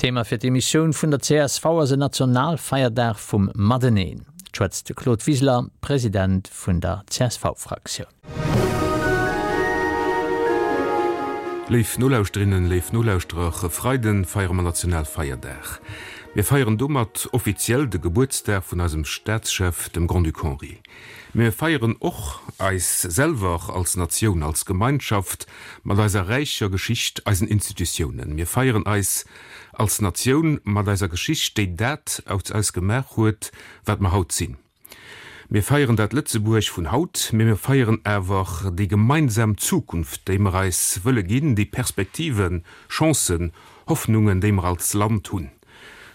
Thema fir d'Emissioun vun der csv ass en Nationalfeierdag vum Mateneen. Et schwätzt de Claude Wiseler, President vun der CSV-Fraktioun. Léif Nolauschterinnen, léif Nolauschterer, e Freiden feiere mer Nationalfeierdag. Mir feieren domat offiziell de Gebuertsdag vun eisem Staatschef, dem Grand-Duc Henri. Mee mir feieren och eis selwer als Natioun, als Gemeinschaft mat eiser räicher Geschicht, eisen Institutiounen. Mir feieren eis als Natioun mat eiser Geschicht, déi dat aus eis gemaach huet, wat mer haut sinn. Mir feieren dat Lëtzebuerg vun haut, mee mir feieren awer déi gemeinsam Zukunft, déi mer eis wëlle ginn, déi Perspektiven, Chancen, Hoffnungen, déi mer als Land hunn.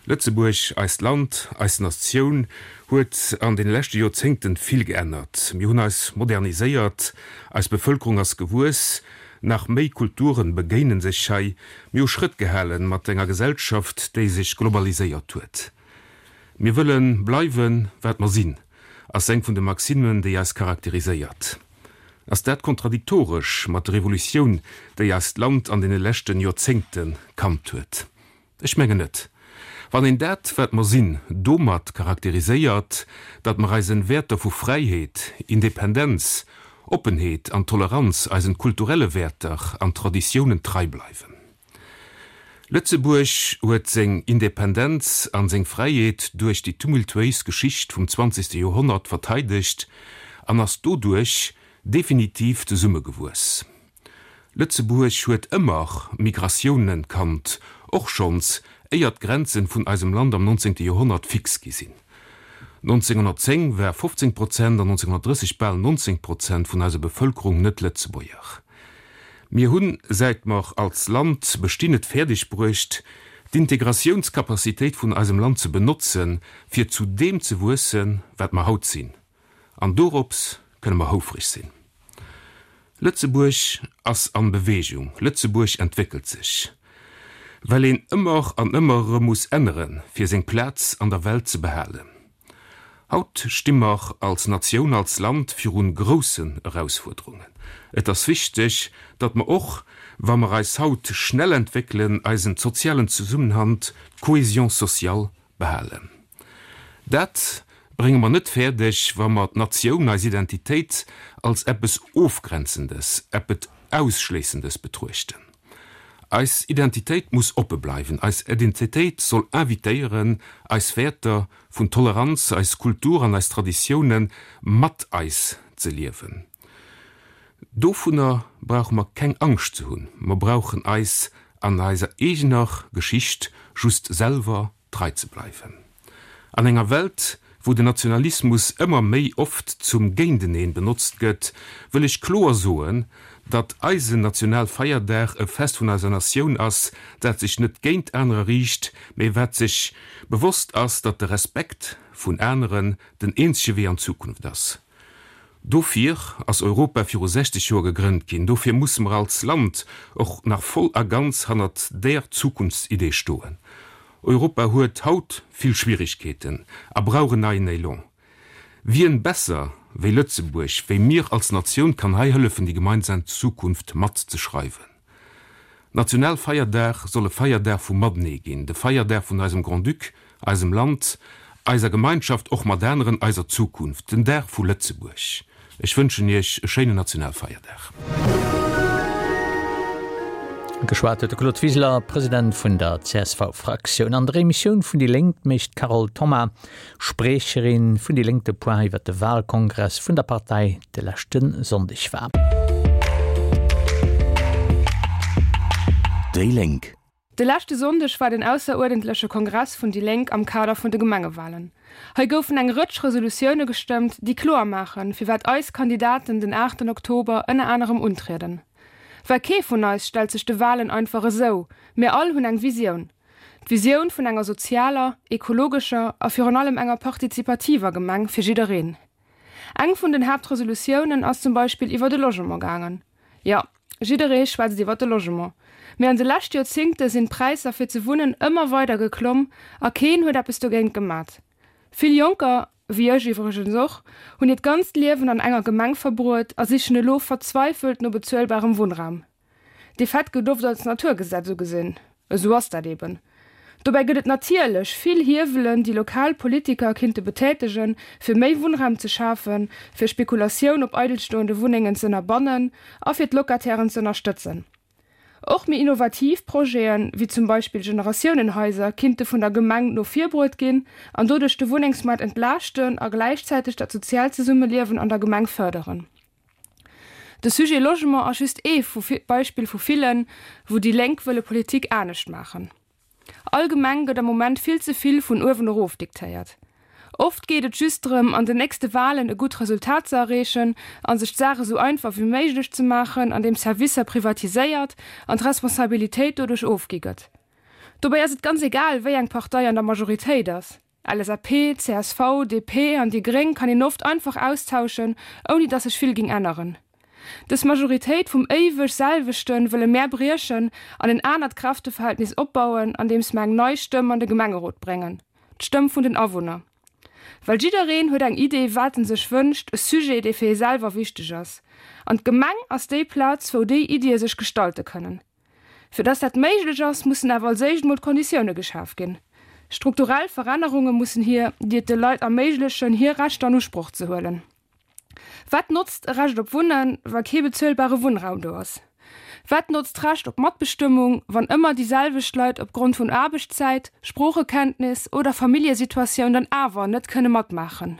Lëtzebuerg, eist Land, eis Natioun huet an deene leschte Joerzéngten vill geännert. Mir hunn eis moderniséiert, eis Bevëlkerung ass gewuess, nach méi Kulturen begéinen sech hei, mir hu Schrëtt gehalen mat enger Gesellschaft, déi sech globaliséiert huet. Mir wëlle bleiwen, wat mer sinn, ass eng vun de Maximen, déi eis charakteriséiert. Ass dat kontradiktoresch mat der Evolutioun, déi eist Land an deene leschten Joerzéngte kannt huet? Ech mengen net. Wann een dat, wat mer sinn, domat charakteriséiert, datt mer eisen Wäerter vu Fräiheet, Independenz, Oppenheet an Toleranz, eisen kulturelle Wäerter an Traditiounen trei bleiwen. Lëtzebuerg huet seng Independenz an seng Fräiheet duerch déi tumultuéis Geschicht vum zwanzegste Joerhonnert verteidegt an ass doduerch definitiv zesummegewuess. Lëtzebuerg huet ëmmer Migratiounen kannt, och schonns éier d'Grenzen vun eisem Land am nonzéngte Joerhonnert fix gi sinn. 1910 war 15 Prozent an 1930 bal 19 Prozent vun eiser Bevëlkerung net-Lëtzebuerger. Mir hunn, säit mer als Land bestinn, et fäerdeg bruecht, d'Integratiounscapacitéit vun eisem Land ze benotzen, fir zu deem ze wuessen, wat mer haut sinn. An dorops kënne mer houfreg sinn. Lëtzebuerg ass an Bewegung, Lëtzebuerg entwéckelt sech. Well een ëmmer an ëmmer erëm muss änneren, fir seng Plaz an der Welt ze behalen. Haut sti mer als Natioun, als Land virun groussen Erausfuerderungen. Et ass wichteg, datt mer och, wa mer eis haut schnell entwéckelen, eisen sozialen Zesummenhalt, d'Cohésion sociale, behalen. Dat brénge mer net fäerdeg, wa mer d'Natioun, eis Identitéit als eppes Ofgrenzendes, eppet Ausschléissendes betruechten. Eis Identitéit muss oppe bleiwen. Eis Identitéit soll invitéieren, eis Wäerter vun Toleranz, eis Kultur an eis Traditioune mat eis ze liewen. Dovunner brauche mer keng Angscht ze hunn. Mer brauchen eis an eiser eegener Geschicht just selwer trei ze bleiwen. An enger Welt, wou den Nationalismus ëmmer méi oft zum Géinteneen benotzt gëtt, wëll ech kloer soen, datt eisen Nationalfeierdag e Fest vun eiser Natioun ass, dat sech net géint anerer riicht, mee wat sech bewosst ass, datt de Respekt vun aneren den eenzege Wee an d'Zukunft ass. Dofir ass Europa viru 60 Joer gegrënnt ginn. Dofir musse mer als Land och nach voll a ganz hannert där Zukunftsidee stoen. Europa huet haut vill Schwierigkeeten a brauch en neien Élan. Wien besser wéi Lëtzebuerg, wéi mir als Natioun kann hei hëllefen déi gemeinsam Zukunft mat ze schreiwen? Nationalfeierdag soll e Feierdag vum Matenee ginn, de Feierdag vun eisem Grand-Duc, eisem Land, eiser Gemeinschaft, och mat aneren, eiser Zukunft, den Dag vu Lëtzebuerg. Ech wënschen Iech e schéinen Nationalfeierdag. Geschwat huet de Claude Wiseler, President vun der CSV-Fraktioun. An der Emissioun vun déi Lénk mécht d'Carole Thoma, Spriecherin vun déi Lénk de Point iwwer de Wahlkongress vun der Partei de leschte Sonndeg war. Déi Lénk. De leschte Sonndeg war den ausseruerdentleche Kongress vun déi Lénk am Kader vun de Gemengewalen. Hei goufen eng Rëtsch Resolutioune gestëmmt, déi kloer maachen, firwat eis Kandidaten den aachten Oktober ënner anerem untrieden. Well kee vun eis stellt sech de Walen einfach esou, mir all hunn eng Visioun. D'Visioun vun enger sozialer, ekologescher a virun allem enger partizipativer Gemeng fir jiddereen. Eng vun den Haaptresolutiounen ass zum Beispill iwwer de Logement gaangen. Jo, jidderee schwätzt iwwer de Logement. Mee an de lescht Joerzingte sinn d'Präisser fir ze wunnen ëmmer weider geklomm a keen huet eppes dogéint gemat. Vill Jonker, wéi ech iwwregens och, hunn hiert ganzt Liewen an enger Gemeng verbruet a sichen elo verzweifelt no bezuelbarem Wunnraum. Dee Fait gëtt oft als Naturgesetz ugesinn. Esou ass dat eben. Dobäi gëtt et natierlech vill Hiewelen, déi lokal Politiker kinnte betätegen, fir méi Wunnraum ze schafen, fir Spekulatioun op eidelstoende Wunnengen ze ënnerbannen a fir d'Locatairen ze ënnerstëtzen. Och méi innovativ Projeten, wéi zum Beispill Generatiounenhaiser, kinnte vun der Gemeng no vir bruet ginn an doduerch de Wunnengsmaart entlaaschten a gläichzäiteg dat soziaalt Zesummeliewen an der Gemeng fërderen. De Sujet Logement ass just ee Beispill vu villen, wou déi Lénk wëlle Politik anescht maachen. Allgemeng gëtt am Moment vill ze vill vun uewen erof diktéiert. Oft geet et just drëm, an den nächste Walen e gutt Resultat ze erreechen a sech d'Saach esou einfach wéi méiglech ze maachen, andeem Servicer privatiséiert an d'Responsabilitéit doduerch ofgi gëtt. Dobäi ass et ganz egal, wéi eng Partei an der Majoritéit ass. LSAP, csv, DP an déi Gréng kann een oft einfach austauschen, ouni dass sech vill ging änneren. Dës Majoritéit vum éiweg selwechten wëlle mär briechen an en anert Kräfteverhältnis opbauen, andeems mer eng nei Stëmm an de Gemengerot bréngen, d'Stëmm vun den Awunner. Well jiddereen huet eng Idee wat en sech wënscht, e Sujet dee fir ee selwer wichteg ass. An d'Gemeng ass déi Plaz wou déi Iddie sech gestalte kënnen. Fir dass dat méiglech ass, mussen awer als éischt mol d'Konditioune geschaf ginn. Strukturell Verännerunge mussen hier, déi et de Leit erméiglechen, hir Rechter an Usproch ze huelen. Wat notzt e Recht op Wunnen, wa kee bezuelbare Wunnraum do ass? Wat notzt d'Recht op Matbestëmmung, wann ëmmer déi selwecht Leit opgrond vun Aarbechtszäit, Sproochekenntnis oder Familljesituatioun dann awer net kënne matmaachen?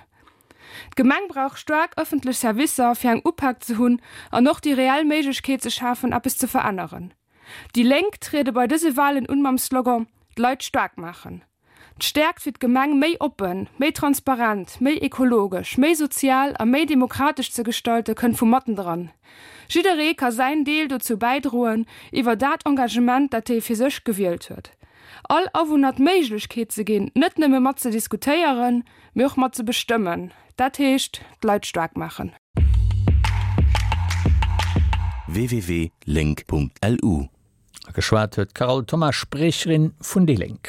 D'Gemeng brauch staark ëffentlech Servicer, fir eng Upak ze hunn an och déi reell Méiglechkeet ze schafen, eppes ze veränneren. Déi Lénk triede bei dëse Walen un mam Slogan D'Leit staark maachen. D'Stäerkt fir d'Gemeng méi oppen, méi transparent, méi ekologesch, méi sozial a méi demokratesch ze gestalte kënnt vu mattendran. Jidderee ka säin Deel dozou bäidroen, iwwer dat Engagement, dat hie fir sech gewielt huet. All Awunner d'Méiglechkeet ze ginn, net nëmme mat ze diskutéieren, mee och mat ze bestëmmen, dat heescht d'Leit staark maachen. www.link.lu. Geschwat huet d'Carole Thoma, Spriecherin vun déi Lénk.